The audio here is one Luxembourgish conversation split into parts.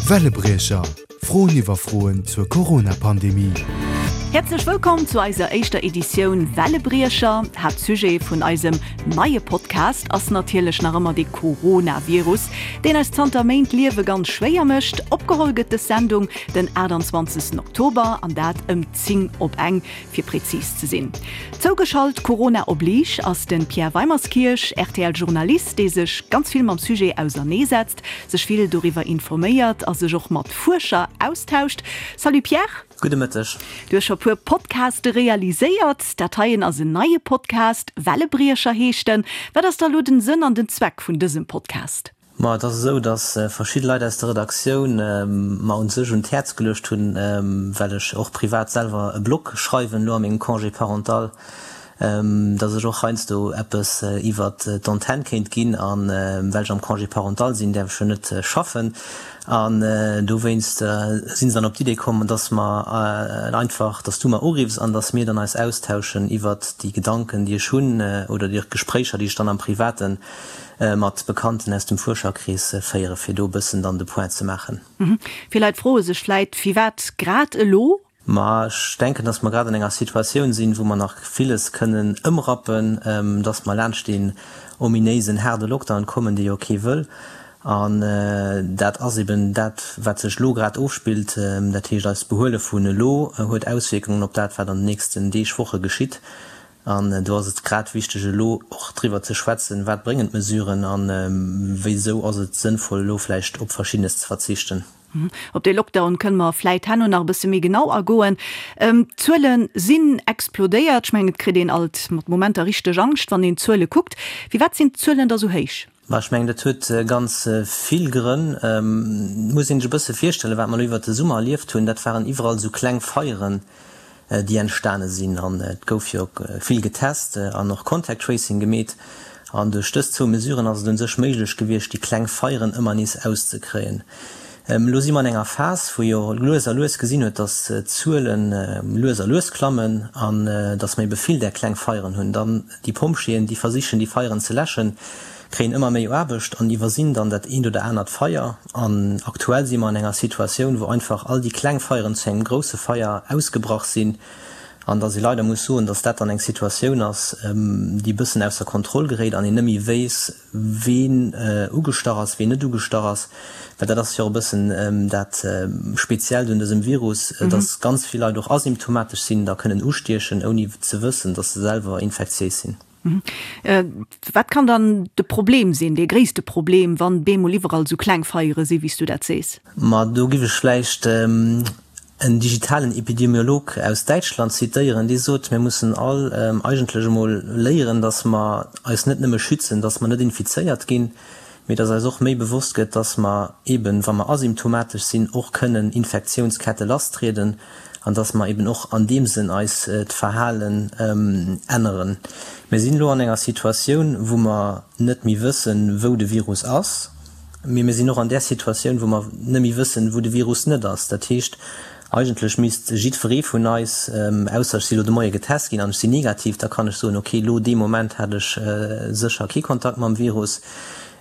Wellebriecher, Froen iwwer Froen zur Corona-Pandemie. Häerzlech wëllkomm zu eiser éischter Editioun Wellebriecher. Haaptsujet vun eisem neie Podcast ass natierlech nach ëmmer de Coronavirus, deen eis zanter Méint d'Liewe ganz schwéier mécht. Opgeholl gëtt dës Sendung den 28 Oktober an dat ëm 10 op eng. Fir prezis ze sinn. Zougeschalt, Corona oblige, ass de Pierre Weimerskirch, RTL-Journalist, dee sech ganz vill mam Sujet auserneesetzt, sech vill doriwwer informéiert a sech och mat Fuerscher austauscht. Salut Pierre. Gudde Mëtteg. Du hues scho puer Podcaste realiséiert. Dat heien ass en neie Podcast, Wellebriecher heescht en. Wat ass da lo den Sënn an den Zweck vun dësem Podcast? Ma et ass esou, datt verschidde Leit aus der Redaktioun mer un sech un d'Häerz geluecht hunn, well ech och privat selwer e Blog schreiwen elo a mengem Congé parental, datt ech och heiansdo eppes iwwert d'Antenn kéint ginn. A well ech am Congé parental sinn, däerf ech jo net schaffen. An dowéinst si se dann op d'Idee komm, datt mer einfach, datt s du mer uriffs an datt mir dann eis austauschen iwwert déi Gedanken, déi ech hunn oder déi Gespréicher, déi ech dann am Privaten mat Bekannten aus dem Fuerscherkrees féieren, fir do e bëssen dann de Point ze maachen. Vill Leit froe sech vläit, Firwat grad elo? Ma ech denken, dass mer grad an enger Situatioun sinn, wou mer nach villes kënnen ëmrappen, dass mer laanscht deen ominéisen haarde Lockdown kommen, dee jo kee wëll. An dat ass eben dat, wat sech elo grad ofspillt. Dat heescht, eist Behuele vun elo huet Auswierkungen op dat, wat an den nächsten Deeg, Woche geschitt. An do ass et grad wichteg, elo och driwwer ze schwätzen, Wat bréngen d'Mesuren a wéisou ass et sënnvoll, elo vläicht op Verschiddenes ze verzichten? Op dee Lockdown kënne mer vläit herno nach e bësse méi genau agoen. D'Zuele sinn explodéiert. Ech mengen, et kritt een alt mat Momenter richteg Angscht, wann een d'Zuele kuckt. Firwat sinn d'Zuelen da sou héich? Ma ech mengen, dat huet ganz vill Grënn. Et muss een sech e bësse virstellen, wat mer elo iwwert de Summer erlieft hunn, dat waren iwwerall esou kleng Feieren, déi entstane sinn. An et gouf jo vill getest an och Contact Tracing gemeet. An duerch dës zwou Mesuren ass et un sech méiglech gewiescht, déi kleng Feieren ëmmer nees auszekréien. Elo si mer an enger Phas, wou jo lues a lues gesinn huet, datt d'Zuele lues a lues klammen an datt mer ebe vill där kleng Feieren hunn. Dann Déi Pompjeeën, déi versichen, déi Feieren ze läschen, kréien ëmmer méi Aarbecht an iwwersinn dann dat eent oder anert Feier. An aktuell si mer an enger Situatioun, wou einfach all déi kleng Feieren zu engem grousse Feier ausgebrach sinn an dass ee leider muss soen, dass dat dann eng Situatioun ass, déi e bëssen ausser Kontroll geréit an een net méi weess, ween ugestach ass, ween net ugestach ass, well dat ass jo och e bëssen dat Speziellt un dësem Virus, dass ganz vill Leit och asymptomatesch sinn, da kënnen ustiechen, ouni ze wëssen, dass se selwer infektiéis sinn. Wat kann dann de Problem sinn, dee gréisste Problem, wann bemol iwwerall esou kleng Feiere sinn, wéi s du dat sees? Ma do giff ech vläicht en digitalen Epidemiolog aus Däitschland zitéieren, dee sot, Mir mussen all eigentlech emol léieren, datt mer eis net nëmme schützen, datt mer net infizéiert ginn, mee datt eis och méi bewosst gëtt, datt mer eben, wa mer asymptomatesch sinn, och kënnen Infektiounskette lasstrieden an datt mer eben och an deem Sënn eis d'Verhalen änneren. Mir sinn elo an enger Situatioun, wou mer net méi wëssen, wou de Virus ass. Mee mir sinn och an där Situatioun, wou mer net méi wëssen, wou de Virus net ass. Dat heescht, eigentlech misst jiddweree vun eis, ausser ech si lo de Moie getest ginn an ech sinn negativ, da kann ech soen, okay, lo dee Moment hat ech sécher kee Kontakt mam Virus.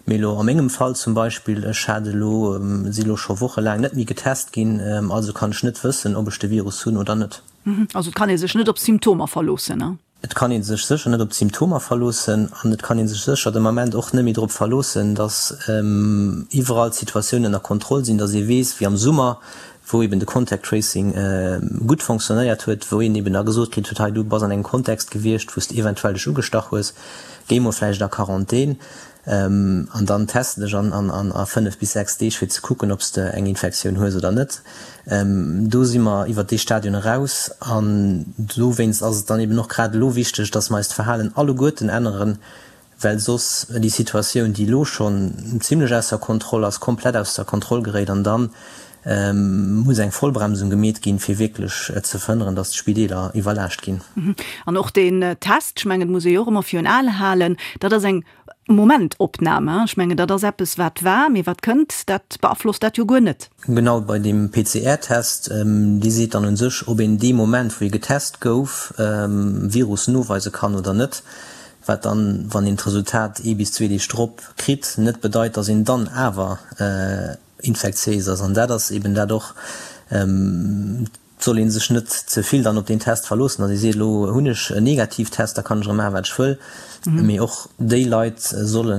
Mee elo a mengem Fall zum Beispill, ech hat elo, si lo scho wochelaang net méi getest ginn, also kann ech net wëssen, ob ech de Virus hunn oder net. Also et kann ee sech net op Symptomer verloossen? Et kann ee sech sécher net op d'Symptomer verloossen an et kann ee sech sécher de Moment och net méi drop verloossen, datt iwwerall d'Situatioun ënner Kontroll sinn, datt ee weess, wéi am Summer, wou eben de Contact Tracing gutt fonctionnéiert huet, wou een eben da gesot kritt huet, hei du bass an engem Kontext gewiescht, wou s de eventuell dech ugestach hues, géi mol vläicht a Quarantän. An dann teste dech an a 5 bis 6 Deeg fir ze kucken, ob s de eng Infektioun hues oder net. Do si mer iwwert dee Stadion eraus an dowéinst ass et dann eben och grad elo wichteg, dass mer eist Verhalen alleguerten änneren, well soss déi Situatioun, déi elo schonn zimlech ausser Kontroll ass, komplett ausser Kontroll geréit an dann muss eng Vollbremsung gemeet ginn, fir wierklech ze verhënneren, dass d'Spideeler iwwerlaascht ginn. An och deen Test, ech mengen, et muss ee jo och ëmmer virun Aen halen, dat ass eng Momentopnam. Ech mengen, dat ass eppes, wat war, mee wat kënnt, dat beaflosst dat jo guer net. Genau, bei deem PCR-Test, dee seet dann u sech, ob een dee Moment, wou ee getest gouf, Virus noweise kann oder net. Wat dann, wann een d'Resultat ee bis zwee Deeg drop kritt, net bedeit, dass een dann awer. infektiéis ass. An dat ass eben dat och, et soll ee sech net ze vill dann op deen Test verloossen, datt ee seet, elo hunn ech en Negativtest, da kann ech erëm maachen, wat ech wëll. Mee och déi Leit solle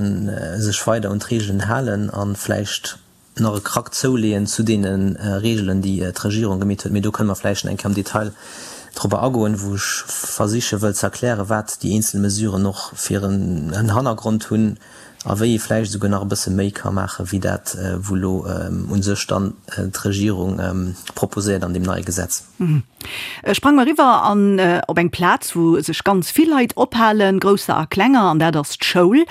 sech weider un d'Reegelen halen a vläicht nach e Krack zouleeën zu deene Reegelen, déi d'Regierung gemeet huet. Mee do kënne mer vläicht nach eng Kéier am Detail drobber agoen, wou ech versiche wëll ze erklären, wat déi eenzel Mesuren och fir en Hannergrond hunn a wéi ee vläicht esouguer nach e bësse méi ka maachen, wéi dat, wou elo u sech dann d'Regierung proposéiert an deem neie Gesetz. Sprang mer eriwwer an op eng Plaz, wou sech ganz vill Leit ophalen, grousser a klenger, an dat ass d'Schoul.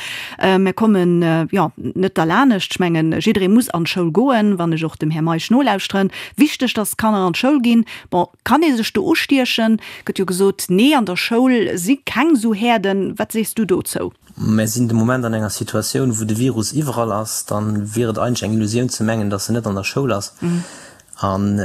Mir kommen, jo, net derlanescht. Ech mengen, jidderee muss an d'Schoul goen, wann ech och dem Här Meisch nolauschteren. Wichteg, dass d'Kanner an d'Schoul ginn. Bon, kann ee sech do ustiechen? Gëtt jo gesot, nee, an der Schoul si keng esou Häerden. Wat sees du dozou? Mer sinn de Moment an enger Situatioun, wou de Virus iwwerall ass. Dann wier et eigentlech eng Illusioun ze mengen, dass en net an der Schoul ass. An,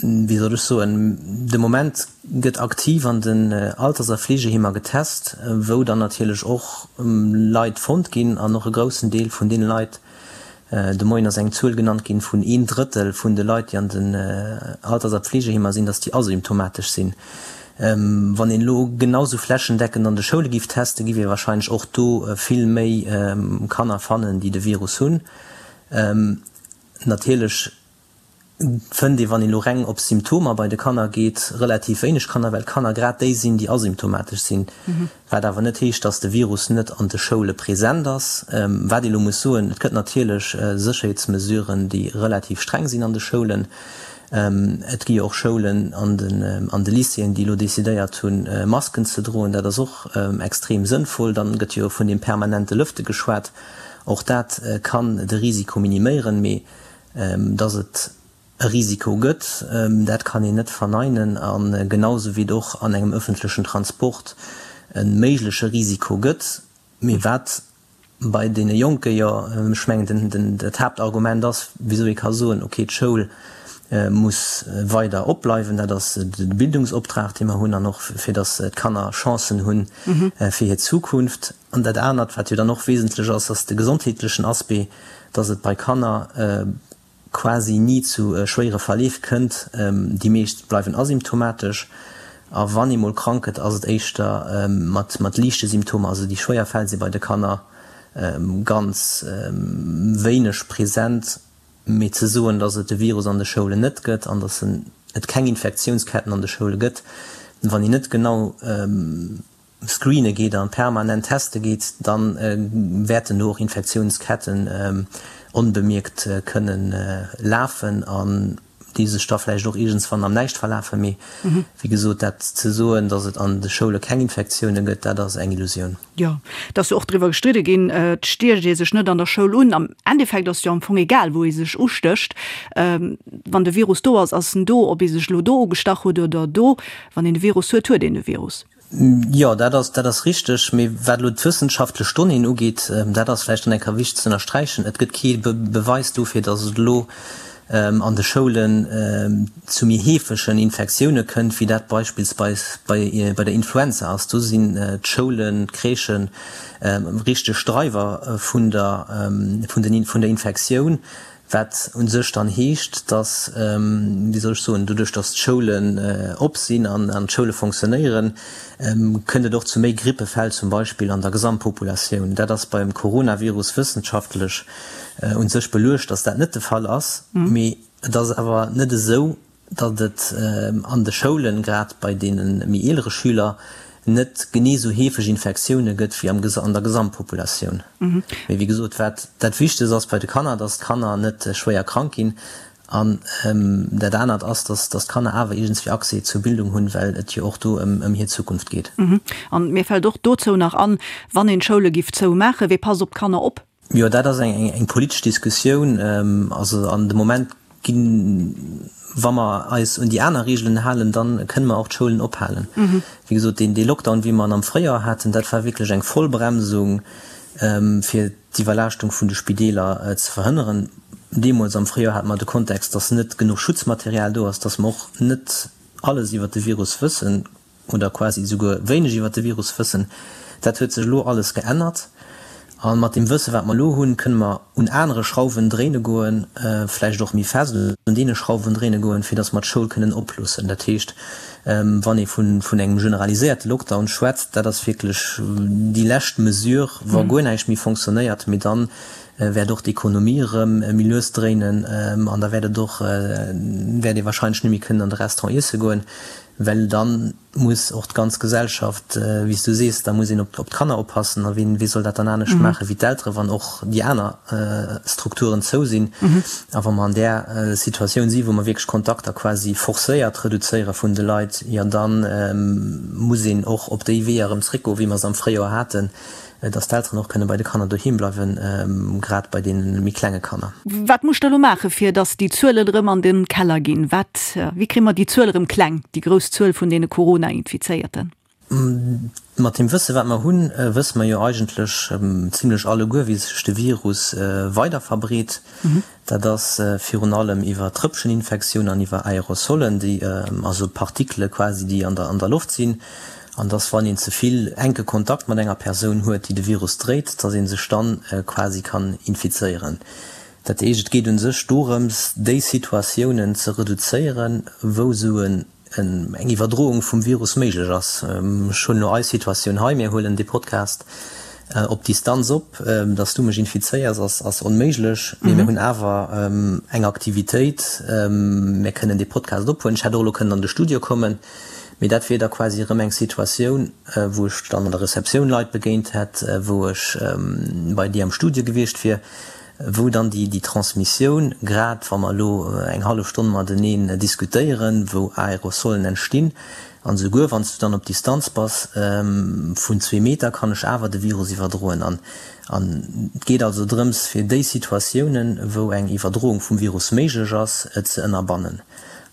wéi soll ech soen, de Moment gëtt aktiv an den Alters a Fleegeheemer getest, wou dann natierlech och Leit fonnt ginn an och e groussen Deel vun deene Leit, de Moien ass eng Zuel genannt ginn vun een Drëttel vun de Leit, déi an den Alters a Pflegeheemer sinn, datt déi asymptomatesch sinn. Wann een elo genau sou flächendeckend an de Schoule giff testen, giff ee wahrscheinlech och do vill méi Kanner fannen, déi de Virus hunn. Natierlech fënnt ee, wann een elo reng op Symptomer bei de Kanner geet, relativ wéineg Kanner, well d'Kanner grad déi sinn, déi asymptomatesch sinn. Wat awer net heescht, dass de Virus net an de Schoule present ass. Wat ee elo muss soen, Et gëtt natierlech Sécherheetsmesuren, déi relativ streng sinn an de Schoulen. Et gi jo och Schoulen an de Lycéeën, déi elo decidéiert hunn, Masken ze droen. Dat ass och extrem sënnvoll. Dann gëtt jo vun deem permanente Lëfte geschwat. Och dat kann de Risiko miniméieren. Mee Dass et e Risiko gëtt, dat kann een net verneinen. A genau sou wéi et och an engem ëffentlechen Transport e méigleche Risiko gëtt. Mee wat bei deene Jonke jo, ech mengen, dat Haaptargument ass, wisou ee ka soen, okay, d'Schoul muss weider opbleiwen, dat ass de Bildungsoptrag, dee mer hunn, an och fir dass d'Kanner Chancen hu fir hir Zukunft. An dat anert, wat jo dann och wesentlech ass, ass de gesondheetlechen Aspect, dass et bei Kanner quasi ni zu schwéiere Verleef kënnt. Déi meescht bleiwen asymptomatesch a wann ee mol krank gëtt, ass et éischter mat liichte Symptomer. Also déi schwéier Fäll si bei de Kanner ganz wéineg present. Mee ze soen, dass et de Virus an de Schoulen net gëtt an dass et keng Infektiounsketten an de Schoule gëtt, wann een net genau screene geet an permanent teste geet, da wäerten do och Infektiounsketten onbemierkt kënnen lafen an déi sech da vläicht och iergendswann am Näischt verlafen. Mee wéi gesot, dat ze soen, datt et an de Schoule keng Infektioune gëtt, dat ass eng Illusioun. Jo, et ass jo och driwwer gestridde ginn, et stiecht ee sech net an der Schoul un. Am Endeffekt ass et jo am Fong egal, wou ee sech ustécht. Wann de Virus do ass, ass en do. Ob ee sech elo do ugestach huet oder do, wann een de Virus huet, huet een de Virus. Jo, dat ass, dat ass richteg. Mee wat elo d'wëssenschaftlech Donnéeën ugeet, dat ass vläicht dann eng Kéier wichteg ze ënnersträichen, Et gëtt kee Beweis dofir, datt et elo an de Schoulen zu méi heefegen Infektioune kënnt, wéi dat beispillsweis bei der Influenza ass. Do sinn d'Schoulen, d'Crèchen richteg Dreiwer vun der, vun den, vun der Infektioun. Wat u sech dann heescht, dass, wéi soll ech soen, doduerch dass d'Schoulen op sinn an d'Schoule fonctionnéieren, kënnt et och zu méi Grippefäll zum Beispill an der Gesamtpopulatioun. Dat ass beim Coronavirus wëssenschaftlech u sech beluecht, dass dat net de Fall ass. Mee et ass awer net esou, datt et an de Schoulen, grad bei deene méi eelere Schüler, net genee esou heefeg Infektioune gëtt wéi an der Gesamtpopulatioun. Mee wéi gesot, wat dat Wichtegst ass bei de Kanner, datt d'Kanner net schwéier krank ginn. An dat anert ass, datt d'Kanner awer iergendswéi Accès zur Bildung hunn, well et jo och do ëm hir Zukunft geet. An mir fält och dozou nach an, wann een d'Schoule giff zoumaachen, wee passt op d'Kanner op? Jo, dat ass eng politesch Diskussioun. Also an de Moment ginn, wa mer eis un déi aner Reegelen halen, da kënne mer och d'Schoulen ophalen. Wéi gesot, deen Lockdown, wéi mer en am Fréijoer haten, dat war wierklech eng Vollbremsung, fir d'Iwwerlaaschtung vun de Spideeler ze verhënneren. Deemools am Fréijoer hate mer de Kontext, datt net genuch Schutzmaterial do ass, datt mer och net alles iwwert de Virus wëssen. oder quasi esouguer wéineg iwwer de Virus wëssen. Dat huet sech elo alles geännert. A mat deem Wësse wat mer elo hunn, kënne mer un anere Schrauwen dréine goen, vläicht och méi fest un deene Schrauwen dréine goen, fir datt mer d'Schoul kënnen oploossen. Dat heescht, wann ee vun engem generaliséierte Lockdown schwätzt, dat ass wierklech déi lescht Mesure, wa guer näischt méi fonctionnéiert, mee dann wäert och d'Ekonomie erëm méi lues dréinen an da wäert et och, wäert ee wahrscheinlech net méi kënnen an de Restaurant iesse goen, well dann, muss och d'ganz Gesellschaft, wéi s du sees, da muss een op d'Kanner oppassen. A wien, wee soll dat dann anescht maache wéi d'Eltere, wann och déi aner Strukturen zou sinn? A wa mer an där Situatioun si wou mer wierklech Kontakter quasi forcéiert reduzéiere vun de Leit, jo da muss een och op déi Weeër erëm zréckgoen, wéi mer se am Fréijoer haten, Dass d'Elteren och kënne bei de Kanner doheem bleiwen, grad bei deene méi klenge Kanner. Wat muss der elo maachen, fir dass déi Zuelen erëm an de Keller ginn? Wat, wéi kréie mer déi Zuel erëm kleng, déi grouss Zuel vun deene Corona-Infizéierten? Mat deem Wësse wat mer hunn, wësse mer jo eigentlech zimlech alleguer, wéi sech de Virus weider verbreet. Dat ass virun allem iwwer Trëppcheninfektioun an iwwer Aerosolen, déi, also Partikele quasi, déi an der an der Loft sinn. An dass, wann een ze vill enke Kontakt mat enger Persoun huet, déi de Virus dréit, dass ee sech dann quasi kann infizéieren. Dat heescht, et geet u sech dorëms, déi Situatiounen ze reduzéieren, wou esou en eng Iwwerdroung vum Virus méiglech ass. Ech hunn elo eis Situatioun hei, mir huelen dee Podcast op Distanz op, dass du mech infizéiers ass ass onméiglech, mee mir hunn awer eng Aktivitéit, mir kënnen dee Podcast ophuelen. Ech hätt och elo kënnen an de Studio kommen, mee dat wier da quasi erëm eng Situatioun, wou ech dann an der Receptioun Leit begéint hätt, wou ech bei dir am Studio gewiescht wier. wou dann déi Transmissioun, grad wa mer elo eng hallef Stonn mateneen diskutéieren, wou Aerosolen entstinn, an esouguer wann s du dann op Distanz bass vun zwee Meter, kann ech awer de Virus iwwerdroen. An et geet also drëms, fir déi Situatiounen, wou eng Iwwerdroung vum Virus méiglech ass, ze ënnerbannen.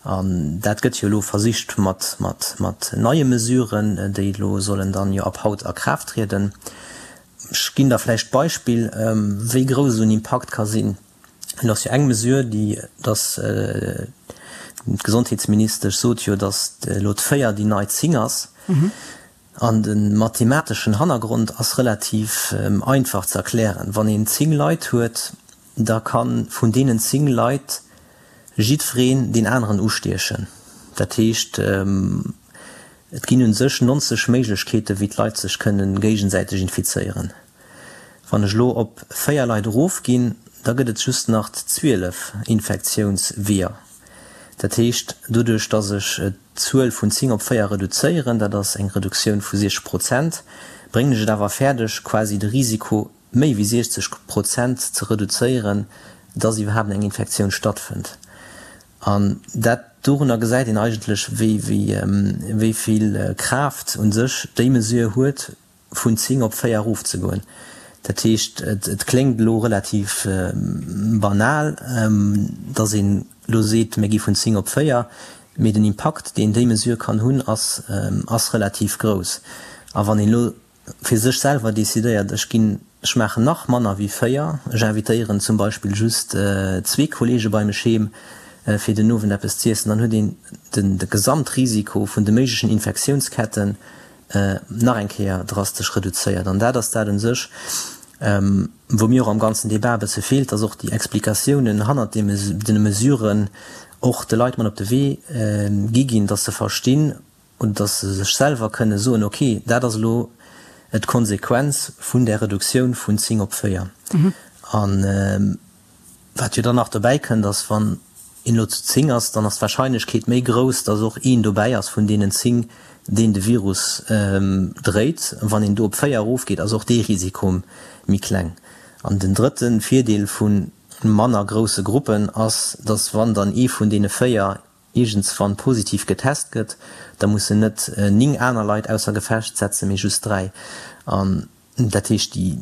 An dat gëtt jo elo versicht mat neie Mesuren, déi elo sollen dann jo ab haut a Kraaft trieden. Ech ginn der vläicht d'Beispill, wéi grouss esou en Impakt ka sinn. Et ass jo eng Mesure, déi, dass d'Gesondheetsministesch sot jo, dass elo d'Véier déi nei 10 ass. An de mathemateschen Hannergrond ass relativ einfach ze erklären. Wann een 10 Leit huet, da ka vun deenen 10 Leit jiddwereen deen aneren ustiechen. Dat heescht, Et ginn un sech 90 Méiglechkeeten, wéi d'Leit sech kënnen géigesäiteg infizéieren. Wann ech elo op 4 Leit erofginn, da gëtt et just nach 12 Infektiounsweeër. Dat heescht, doduerch dass ech d'Zuel vun 10 op 4 reduzéieren, dat ass eng Reduktioun vu 60 Prozent, bréngen ech et awer fäerdeg, quasi de Risiko méi wéi 60 Prozent ze reduzéieren, dass iwwerhaapt eng Infektioun stattfënnt. An dat, dorunner gesäit een eigentlech, wéi, wéi vill Kraaft u sech déi Mesure huet, vun 10 op 4 erofzegoen. Dat heescht, et kléngt elo relativ banal, dass een elo seet, mir gi vun 10 op 4, mee den Impakt, deen déi Mesure kann hunn, ass, ass relativ grouss. A wann een elo fir sech selwer decidéiert, ech ginn, ech maachen nach manner wéi 4, ech invitéieren zum Beispill just zwee Kollege bei mech heem fir den Owend eppes z'iessen, dann huet een den de Gesamtrisiko vun de méiglechen Infektiounsketten nach eng Kéier drastesch reduzéiert. An dat ass dat un sech, wou mir och am ganzen Debat e bësse feelt, dass och déi Explikatiounen hannert deene Mesuren och de Leit mat op de Wee gi ginn, dass se verstinn, Oder dass se sech selwer kënne soen, ok, dat ass elo d'Konsequenz vun där Reduktioun vun 10 op 4. A wat jo dann nach dobäi kënnt, ass, wann een elo zu 10 ass, dann ass d'Wahrscheinlechkeet méi grouss, dass och een dobäi ass vun deenen 10, deen de Virus dréit. Wann een do op 4 erofgeet, ass och dee Risiko méi kleng. An den drëtte Virdeel vu manner grousse Gruppen ass, dass wann dann ee vun deene 4 iergendswann positiv getest gëtt, da mussen net 9 aner Leit ausser Gefecht setzen, mee just 3. An dat heescht, déi,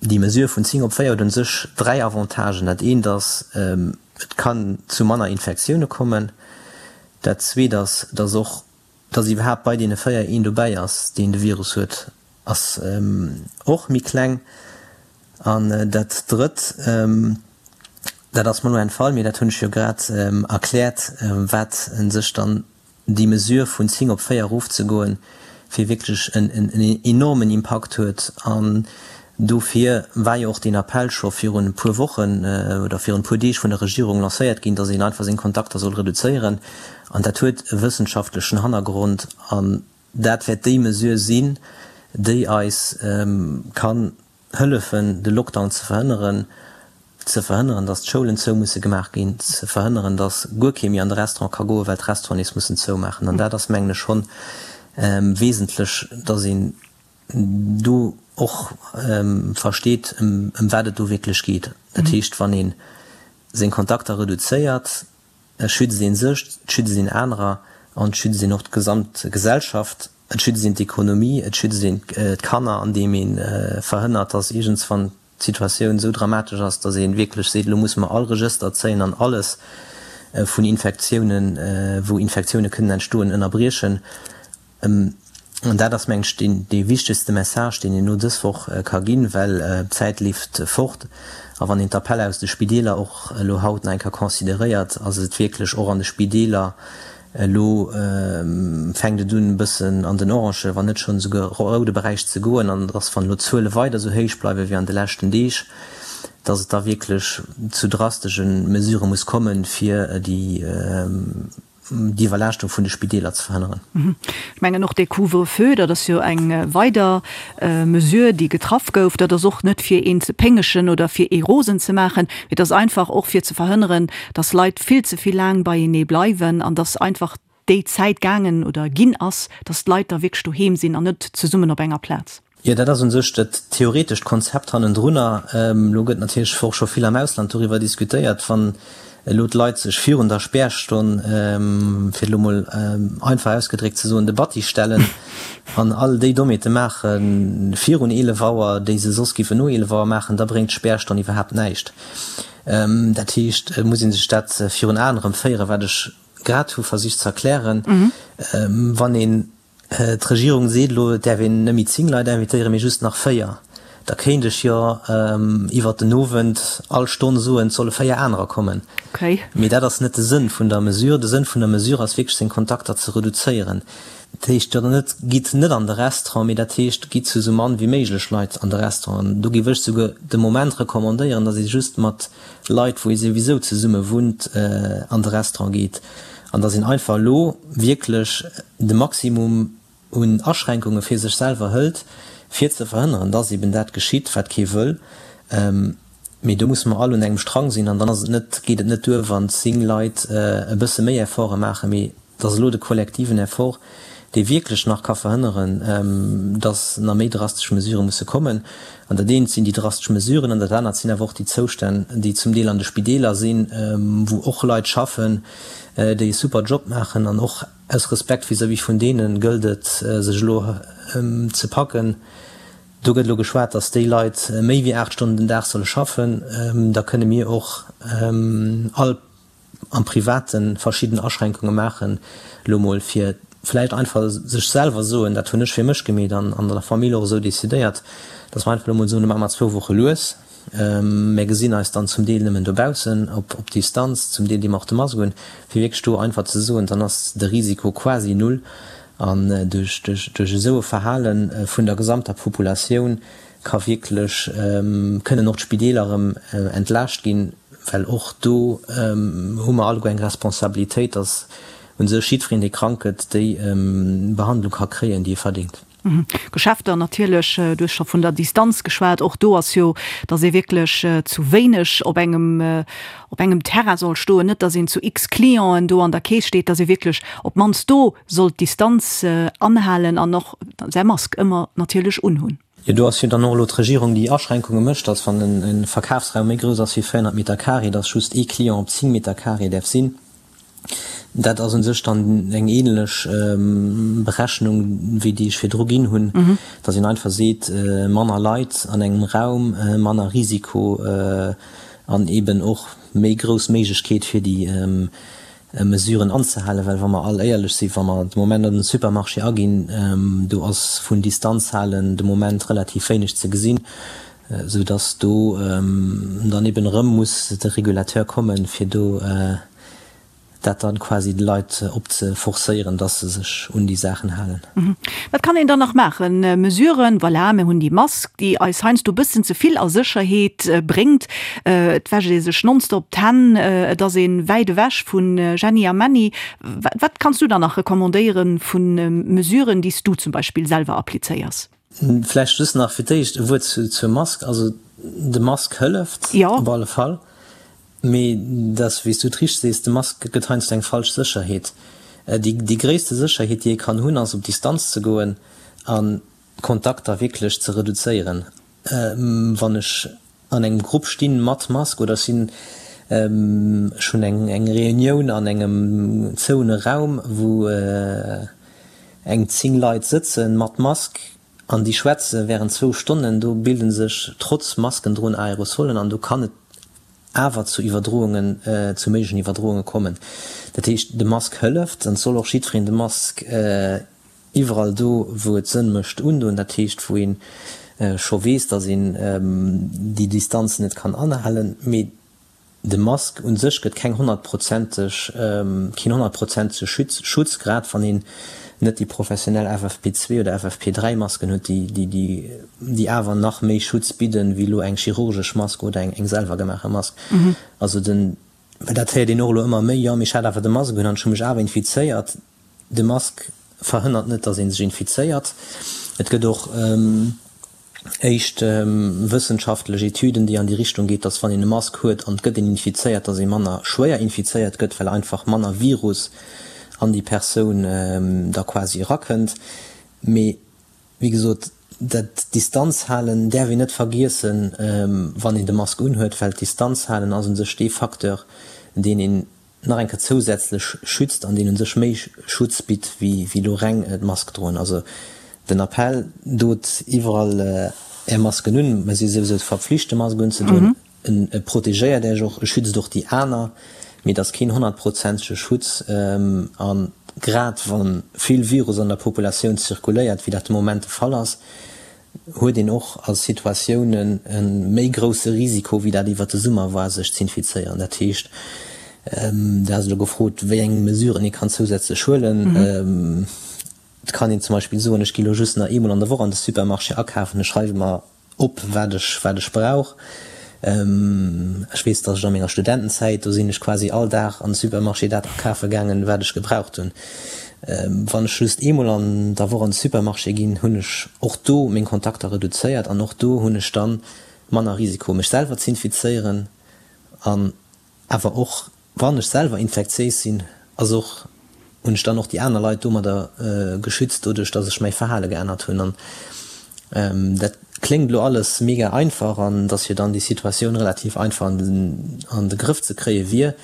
déi Mesure vun 10 op 4 huet un sech 3 Avantagen. Dat eent ass, et kann zu manner Infektioune kommen. Dat zweet ass, dass och, dass iwwerhaapt bei deene 4 een dobäi ass, deen de Virus huet, ass och méi kleng. An dat Drëtt, dat ass mer elo entfall, mee dat hunn ech jo grad erkläert, wat u sech dann déi Mesure vun 10 op 4 erofzegoen, fir wierklech en enormen Impakt huet. An. Dofir war jo och deen Appell scho virun e puer Wochen oder virun e puer Deeg vun der Regierung lancéiert ginn, dass een einfach seng Kontakter soll reduzéieren. An dat huet e wëssenschaftlechen Hannergrond an dat wäert déi Mesure sinn, déi eis kann hëllefen, de Lockdown ze verhënneren, ze verhënneren, dass d'Schoulen zou musse gemaach ginn, ze verhënneren, dass guer kee méi an de Restaurant ka goen, well d'Restauranten nees mussen zoumaachen. An dat ass, mengen ech, schonn wesentlech, dass een do och versteet, ëm wat et do wierklech geet. Dat heescht, wann ee seng Kontakter reduzéiert, schützt ee sech, et schützt een anerer an et schützt een och d'gesamt Gesellschaft, et schützt een d'Ekonomie, et schützt een d'Kanner, andeem ee verhënnert, dass iergendswann d'Situatioun esou dramatesch ass, dass ee wierklech seet, elo musse mer all Regëster zéien an alles vun Infektiounen, wou Infektioune kënnen entstoen, ënnerbriechen. An dat ass, mengen ech, deen dee wichtegste Message, deen een elo dës Woch ka ginn, well d'Zäit leeft fort. A wann een d'Appeller aus de Spideeler och elo haut nach eng Kéier consideréiert, ass et wierklech och an de Spideeler elo fänkt et un e bëssen an den orange, wann net schonn esouguer roude Beräich ze goen. An dass, wann elo d'Zuele weider esou héich bleiwe wéi an de leschten Deeg, dass et da wierklech zu drastesche Mesurë muss kommen, fir déi d'Iwwerlaaschtung vun de Spideeler ze verhënneren. Ech mengen och dee Couvre-feu, dat ass jo eng weider Mesure, déi getraff gouf. Dat ass och net fir een ze péngegen oder fir ee rosen ze maachen, mee dat ass einfach och fir ze verhënneren, dass Leit vill ze vill laang beienee bleiwen an dass einfach déi Zäit gaangen oder ginn ass, dass d'Leit da wierklech doheem sinn an net zesummen op enger Plaz. Jo, dat ass u sech dat theoretescht Konzept hannendrunner. Elo gëtt natierlech och scho vill am Ausland doriwwer diskutéiert, wann elo d'Leit sech virun der Spärstonn, fir et elo mol einfach ausgedréckt ze soen, de Batti stellen an all déi Dommheete maache virun 11 Auer, déi se soss géifen no 11 Auer maachen, da bréngt d'Spärstonn iwwerhaapt näischt. Dat heescht, et muss ee sech dat virun Aen erëm féieren, wat ech grad hu versicht ze erklären. Wann een D'Regierung seet elo, et däerf een net méi 10 Leit invitéieren, mee just nach 4. Da kéint ech jo iwwert den Owend all Stonn soen, et solle 4 anerer kommen. Mee dat ass net de Sënn vun der Mesure. De Sënn vun der Mesure ass wierklech, seng Kontakter ze reduzéieren. Dat heescht jo dann net, gitt net an de Restaurant, mee dat heescht, gitt zu esou mann wéi méiglech Leit an de Restaurant. An do géif ech souguer de Moment recommandéieren, datt ee just mat Leit, wou ee souwisou zesumme wunnt, an de Restaurant geet. An datt een einfach elo wierklech de Maximum un Aschränkunge fir sech selwer hëlt, fir ze verhënneren, datt eben dat geschitt, wat kee wëll. Mee do musse mer all un engem Strang sinn an dann ass et net, geet et net duer, wann 10 Leit e bësse méi Efforte maachen, mee et ass elo de kollektiven Effort, dee wierklech nach ka verhënneren, datt nach méi drastesch Mesurë musse kommen. An dat eent sinn déi drastesch Mesuren an dat anert sinn awer och déi Zoustänn, déi zum Deel an de Spideeler sinn, wou och Leit schaffen, déi e super Job maachen. An och aus Respekt vis-à-vis vun deene gëllt et, sech elo ze packen. Do gëtt elo geschwat, datt déi Leit méi wéi 8 Stonnen den Dag solle schaffen. Da kënne mir och all am Private verschidden Aschränkunge maachen, elo mol fir vläicht einfach sech selwer soen, dat hunn ech fir mech gemeet an an der Famill och esou decidéiert, datt mer einfach elo mol soen, elo maache mer zwou Woche lues, mär gesinn eis dann zum Deel nëmmen dobaussen op op Distanz, zum Deel di mer och de Mask un, fir wierklech do einfach ze soen, dann ass de Risiko quasi null an duerch duerch duerch esou e Verhale vun der gesamter Populatioun ka wierklech, kënnen och d'Spideeler erëm entlaascht ginn, well och do hu mer alleguer eng Responsabilitéit, dass u sech jiddwereen, dee krank gëtt, déi Behandlung ka kréien, déi e verdéngt. Geschäfter natierlech, du hues scho vun der Distanz geschwat, och do ass jo, dass ee wierklech zu wéineg op engem, op engem Terrain soll stoen, net dass een zu x Clienten do an der Keess steet, dass ee wierklech op d'mannst do soll d'Distanz anhalen an och säi Mask ëmmer natierlech unhunn. Jo, do ass jo dann och elo d'Regierung, déi Aschränkunge mécht, dass wann e Verkafsraum méi grouss ass wéi 400 Meter carré, dass just ee Client op 10 Meter carré däerf sinn. Dat ass u sech dann eng ähnlech Berechnung wéi déi ech virdru ginn hunn, dass een einfach seet, manner Leit an engem Raum, manner Risiko an eeben och méi grouss Méiglechkeet fir déi Mesuren anzehalen, well wa mer all éierlech sinn, wa mer de Moment an den Supermarché aginn, do ass vun Distanz halen de Moment relativ wéineg ze gesinn, esou dass do dann eben erëm muss de Régulateur kommen, fir do. Dat dann quasi de Leit opzeforcéieren, dass se sech un déi Saachen halen. Wat kann een dann nach maachen? Mesuren, voilà, mir hunn déi Mask, déi eis heiansdo e bëssen ze vill a Sécherheet bréngt. Et wäscht ee sech nonstop d'Hänn, et ass ee wäit ewech vu Jenny a Männi. Wat kanns du dann nach recommandéiere vu Mesuren, déi s du zum Beispill selwer applizéiers? Vläicht just nach fir d'éischt e Wuert zur Mask. Also de Mask hëlleft op alle Fall. Mee et ass, wéi s du et richteg sees, de Mask gëtt heiansdo eng falsch Sécherheet. Déi gréisste Sécherheet, déi ee kann hunn, ass op Distanz ze goen a Kontakter wierklech ze reduzéieren. Wann ech an engem Grupp stinn mat Mask oder ech sinn, ech hunn eng Reunioun an engem zouene Raum, wou eng 10 Leit sëtzen mat Mask an déi schwätze während zwou Stonnen, do bilde sech trotz Maskendroen Aerosolen an do kann et awer zu Iwwerdroungen, zu méiglechen Iwwerdrounge kommen. Dat heescht, de Mask hëlleft an et soll och jiddwereen de Mask iwwerall do, wou et Sënn mécht, undoen. Dat heescht, wou ee scho weess, datt een déi Distanzen net kann anhalen. Mee de Mask un sech gëtt keng honnertprozenteg, keen honnertprozentege Schutz, grad wann een net déi professionell FFP2 oder FFP3 Masken huet, déi awer nach méi Schutz bidden, wéi elo eng chirurgesch Mask oder eng selwer gemaache Mask. Also den, well dat héiert een och elo ëmmer méi, jo mee ech hat awer de Mask un an ech hu mech awer infizéiert. De Mask verhënnert net, datt ee sech infizéiert. Et gëtt och éischt wëssenschaftlech Etüden, déi an déi Richtung geet, datt wann een e Mask huet an et gëtt een infizéiert, datt ee manner schwéier infizéiert gëtt, well einfach manner Virus an déi Persoun da quasi erakënnt. Mee wéi gesot, dat Distanz halen däerf een net vergiessen, wann een de Mask unhuet, well d'Distanz halen ass u sech dee Facteur, deen een nach eng Kéier zousätzlech schützt an deen u sech méi Schutz bitt wéi elo reng d'Mask droen. Also den Appell, dot iwwerall Är Masken un, mer si souwisou verpflicht de Mask unzedoen, e protegéiert Äech och, e schützt och déi aner, mee et ass keen honnertprozentege Schutz a grad wa vill Virus an der Populatioun zirkuléiert, wéi dat de Moment de Fall ass, huet een och a Situatiounen e méi grousse Risiko, wéi dat iwwert de Summer war, sech z'infizéieren. Dat heescht, Du has elo gefrot, wéi eng Mesuren ee kann zousätzlech huelen. Et kann een zum Beispill soen, ech gi elo just nach eemol an der Woch an de Supermarché akafen, ech schreiwe mer op, wat ech, wat ech brauch. Ech weess, datt ech a menger Studentenzäit, do sinn ech quasi all Dag an de Supermarché dat akafe gaangen, wat ech gebraucht hunn. Wann ech just eemol an der Woch an de Supermarché ginn, hunn ech och do meng Kontakter reduzéiert an och do hunn ech dann manner Risiko, mech selwer z'infizéieren an awer och Wann ech selwer infektiéis sinn, ass och, hunn ech dann och déi aner Leit domadder geschützt, doduerch dass ech mäi Verhale geännert hunn. An dat kléngt elo alles mega einfach an dass jo dann déi Situatioun relativ einfach an de Grëff ze kréie wier.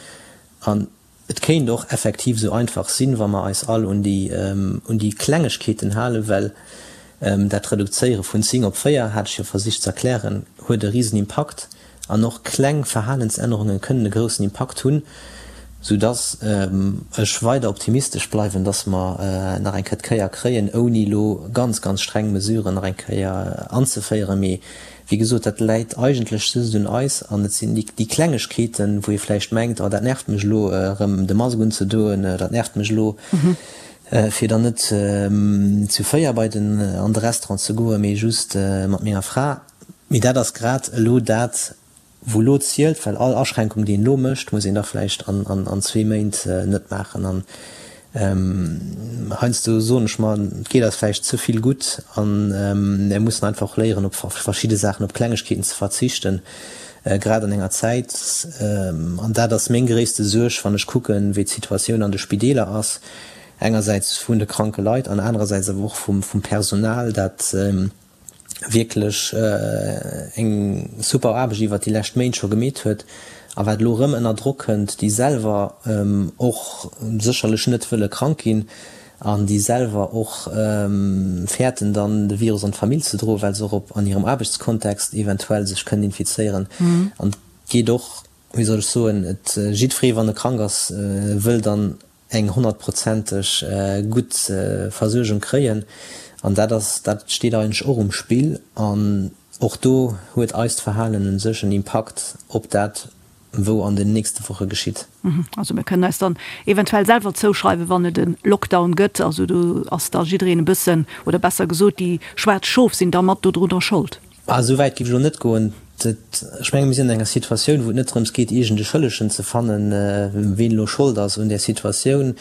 An et kéint och effektiv esou einfach sinn, wa mer eis all un déi, un déi Klengegkeeten halen, well Dat Reduzéiere vun 10 op 4, hat ech jo versicht ze erklären, huet e risen Impakt. An och kleng Verhalensännerunge kënnen e groussen Impakt hunn, soudass ech weider optimistesch bleiwen, dass mer nach eng Kéier d'Kéier kréien, ouni elo ganz, ganz streng Mesuren nach eng Kéier anzeféieren. Mee wéi gesot, dat läit eigentlech just un eis an et sinn déi Klengegkeeten, wou ee vläicht mengt, oh dat nervt mech elo erëm de Mask unzedoen, dat nervt mech elo, fir dann net zu 4 bei den an de Restaurant ze goen, mee just mat menger Fra. Mee dat ass grad elo dat, wou elo zielt, well all Aschränkung, déi een elo mécht, muss een da vläicht an zwee Méint net maachen. An heiansdo soen ech mer, et geet eis vläicht ze vill gutt a mir mussen einfach och léieren, op verschidde Saachen, op Klengegkeeten ze verzichten, grad an enger Zäit, an dat ass meng gréisste Suerg, wann ech kucken, wéi d'Situatioun an de Spideeler ass, engersäits vun de kranke Leit an anerersäits awer och vum Personal, dat wierklech eng super Aarbecht iwwert déi lescht Méint scho gemeet huet a wat elo erëm ënner Drock kënnt, déi selwer och sécherlech net wëlle krank ginn an déi selwer och fäerten dann de Virus an d'Famill ze droen, well se och op an hirem Aarbechtskontext eventuell sech kënnen infizéieren. An et geet och, wéi soll ech soen, et jiddweree wann e krank ass, wëll dann eng honnertprozenteg gutt Versuergung kréien an dat ass, dat steet eigentlech och um Spill an och do huet eist Verhalen u sech en Impakt op dat. wou an den nächste Woche geschitt. Also mir kënnen eis dann eventuell selwer zouschreiwen, wann et e Lockdown gëtt. Also do ass da jiddereen e bëssen, oder besser gesot, déi schwaarz Schof sinn da mat dodrunner Schold. Ah, esou wäit géif ech elo net goen. Ech menge mir sinn an enger Situatioun, wou et net drëms geet, iergend e Schëllegen ze fannen, ween elo Schold ass un där Situatioun.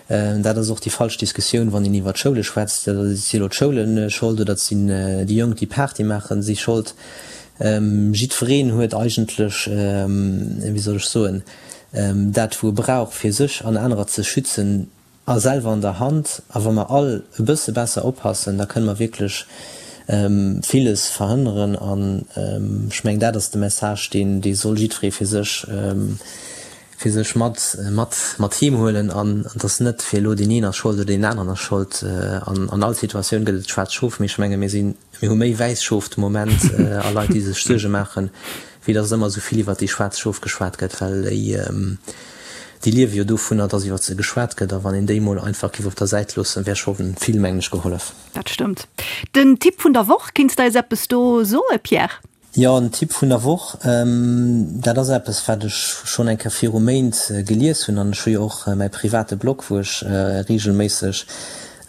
Dat ass och déi falsch Diskussioun, wann een iwwer d'Schoule schwätzt. Si elo d'Schoule Schold oder sinn déi Jonk, déi Party maachen, si Schold? Jiddwereen huet eigentlech, wéi soll ech soen, dat wou e brauch fir sech an anerer ze schützen, a selwer an der Hand. A wa mer all e bësse besser oppassen, da kënne mer wierklech villes verhënneren. An ech mengen, dat ass de Message, deen dee soll jiddweree fir sech, fir sech mat, mat, mat heem huelen. An et ass net fir elo deen een ass Schold oder deen aneren ass Schold. An an all Situatioun gëtt et schwaarz Schof. Mee ech menge mir sinn, mir hu méi wäiss Schof de Moment a Leit, déi sech Suerge maachen, wéi dass ëmmer esou vill iwwert déi schwaarz Schof geschwat gëtt, well déi, déi liewe jo dovunner, dass iwwert se geschwat gëtt. A wann een déi mol einfach géif op der Säit loossen, wär scho vill, mengen ech, gehollef. Dat stëmmt. Den Tipp vun der Woch, kinns de eis eppes do soe, Pierre? Jo, den Tipp vun der Woch, dat ass eppes, wat ech schonn eng Kéier viru Méint gelies hunn. An ech hu jo och mäi private Blog, wou ech reegelméisseg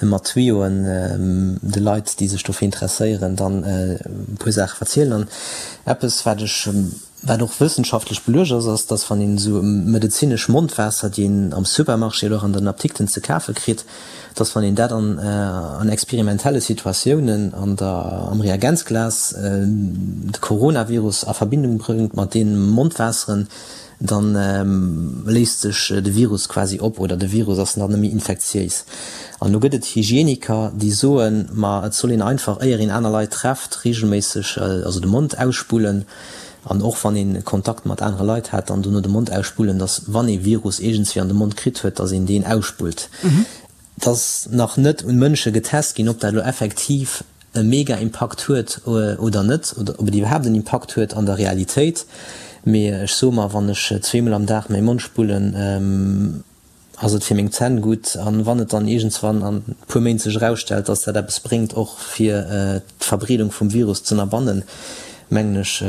mat Tuyauxen de Leit, déi sech dofir interesséieren, dann e puer Saache verzielen. An eppes, wat ech, wat och wëssenschaftlech beluecht ass, ass, dass wann een esou medezinesch Mondwaasser, déi een am Supermarché oder och an den Apdikten ze kafe kritt, dass wann een dat an an experimentelle Situatiounen an der am Reagenzglas de Coronavirus a Verbindung bréngt mat deene Mondwaasseren, dann léist sech de Virus quasi op oder de Virus ass dann net méi infektiéis. An elo gëtt et Hygieniker, déi soen, ma et soll een einfach, éier een aner Leit trefft, reegelméisseg also de Mond ausspullen an och wann ee Kontakt mat anere Leit hat, dann dono de Mond ausspullen, dass wann ee Virus iergendswéi an de Mond kritt huet, dass een deen ausspullt. Et ass nach net un Mënsche getest ginn, ob dat elo effektiv e mega Impakt huet oder net, oder ob et iwwerhaapt en Impakt huet an der Realitéit. Mee ech soe mer, wann ech zweemol am Dag mäi Mond spullen, ass et fir meng Zänn gutt. An wann et dann iergendswann an e puer Méint sech erausstellt, dass dat eppes bréngt och fir d'Verbreedung vum Virus z'ënnerbannen, mengen ech,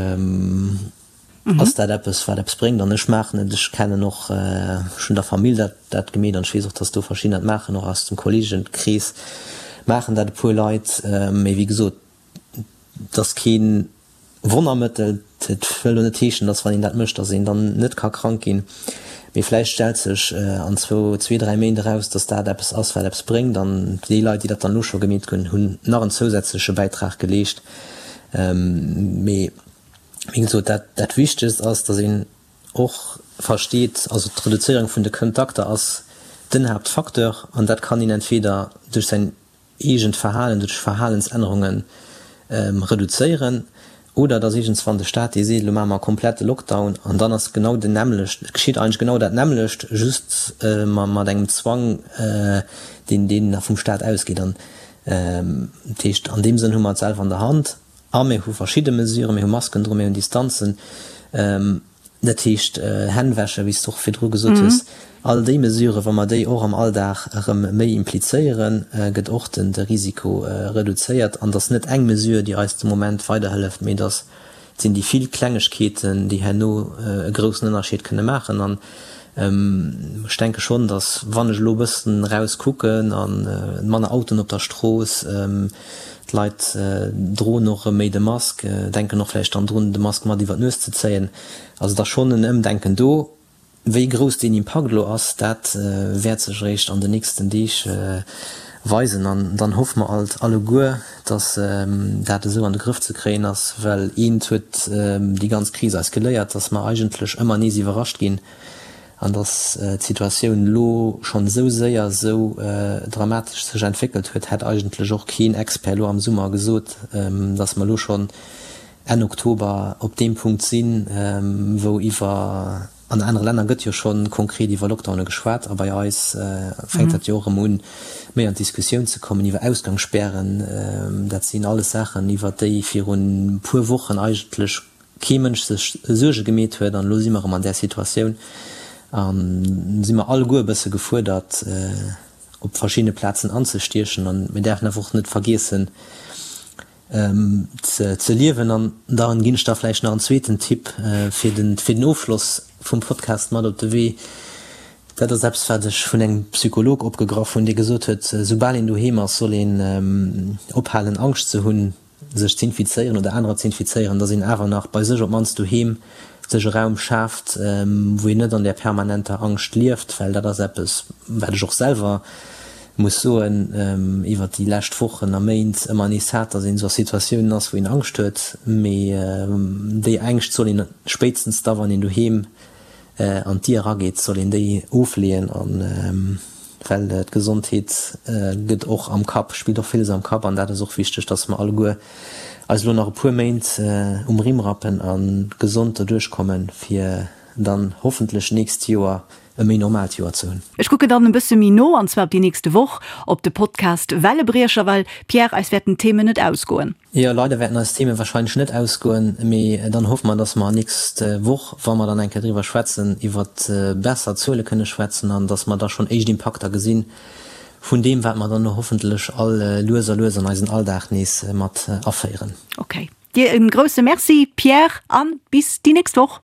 Ass dat eppes, wat eppes bréngt? An ech maachen et. Ech kennen och, ech hunn der Famill dat dat gemeet an ech weess och, dass do verschiddener et maachen, och aus dem Kolleegenkrees maachen dat e puer Leit. Mee wéi gesot, et ass kee Wonnermëttel. Et wëll elo net heeschen, dass wann een dat mécht, dass een dann net ka krank ginn. Mee vläicht stellt sech an zwou, zwee, dräi Méint eraus, dass dat eppes ass, wat eppes bréngt. An déi Leit, déi dat dann elo scho gemeet hunn, hunn nach en zousätzleche Bäitrag geleescht. Mee. Wéi gesot, dat, dat Wichtegst ass, dass een och versteet, also d'Reduzéierung vun de Kontakter ass den Haaptfacteur an dat kann een entweder duerch säin eegent Verhalen, duerch Verhalensännerunge reduzéieren oder dass iergendswann de Staat dee seet, elo maache mer e komplette Lockdown an dann ass genau den nämmlecht, et geschitt eigentlech genau dat nämmlecht, just mat engem Zwang, deen, deen vum Staat ausgeet. An dat heescht, an deem Sënn hu mer et selwer an der Hand. A mir hu verschidde Mesuren, mir hu Masken dru, mir hunn Distanzen, dat heescht Hänn wäschen, wéi s de och virdru gesot hues. All déi Mesuren, wa mer déi och am Alldag erëm méi implizéieren, gëtt och de Risiko reduzéiert. An et ass net eng Mesure, déi eis de Moment weiderhëlleft, mee et ass, et sinn déi vill Klengegkeeten, déi herno e groussen Ënnerscheed kënne maachen. An ech denke schonn, datt wann ech elo e bëssen eraus kucken a manner Autoen op der Strooss, D'Leit droen och erëm méi de Mask, denken och vläicht dann drun, de Mask mat iwwer d'Nues ze zéien. Also et ass schonn en Ëmdenken do. Wéi grouss deen Impakt elo ass, dat wäert sech eréischt an den nächsten Deeg weisen. An dann hoffe mer alt alleguer, datt dat esou an de Grëff ze kréien ass, well eent huet déi ganz Kris eis geléiert, datt mer eigentlech ëmmer nees iwwerrascht ginn An datt d'Situatioun elo schonn esou séier esou dramatesch sech entwéckelt huet, hätt eigentlech och keen Expert elo am Summer gesot, datt mer elo schonn Enn Oktober op deem Punkt sinn, wou iwwer, an anere Länner gëtt jo scho konkret iwwer Lockdowne geschwat a bei eis fänkt dat jo och erëm un, méi an d'Diskussioun ze kommen iwwer Ausgangsspären. Dat sinn alles Saachen, iwwer déi virun e puer Wochen eigentlech kee Mënsch sech Suerge gemeet huet. An elo si mer erëm an där Situatioun a si mer alleguer e bësse gefuerdert, op verschiddene Plazen anzestiechen. An mir däerfen awer och net vergiessen, ze liewen. An dann ginn ech da vläicht nach en zweeten Tipp fir den, fir den Ofschloss. vum Podcast mat op de Wee. Dat ass eppes, wat ech vun engem Psycholog opgegraff hunn, dee gesot huet, soubal een doheem ass, soll een ophalen Angscht ze hunn, sech z'infizéieren oder anerer z'infizéieren, dass een awer nach bei sech op d'mannst doheem sech e Raum schaaft, wou een net an där permanenter Angscht lieft, well dat ass eppes, wat ech och selwer muss soen, iwwert déi lescht Wochen a Méint ëmmer nees hat, dass een esou a Situatiounen ass, wou een Angscht huet. Mee déi Ängscht soll een spéitstens da, wann een doheem an d'Dier erageet, soll een déi ofleeën an well d'Gesondheet gëtt och am Kapp, spillt och villes am Kapp an dat ass och wichteg, dass mer alleguer eis elo nach e puer Méint um Rimm rappen a gesond derduerch kommen, fir dann hoffentlech nächst Joer e méi normaalt Joer ze hunn. Ech kucken dann e bësse méi no, an zwar op déi nächste Woch, op de Podcast Wellebriecher, well, Pierre, eis wäerten d'Themen net ausgoen. Jo, leider wäerten eis Themen wahrscheinlech net ausgoen, mee dann hoffe mer, dass mer nächst Woch, wa mer dann eng Kéier driwwer schwätzen, iwwert besser Zuele kënne schwätzen an dass mer da schonn éischt Impakter gesinn vun deem, wat mer dann elo hoffentlech all lues a lues an eisen Alldag nees mat aféieren. Ok, dir e grousse Merci, Pierre, a bis déi nächst Woch.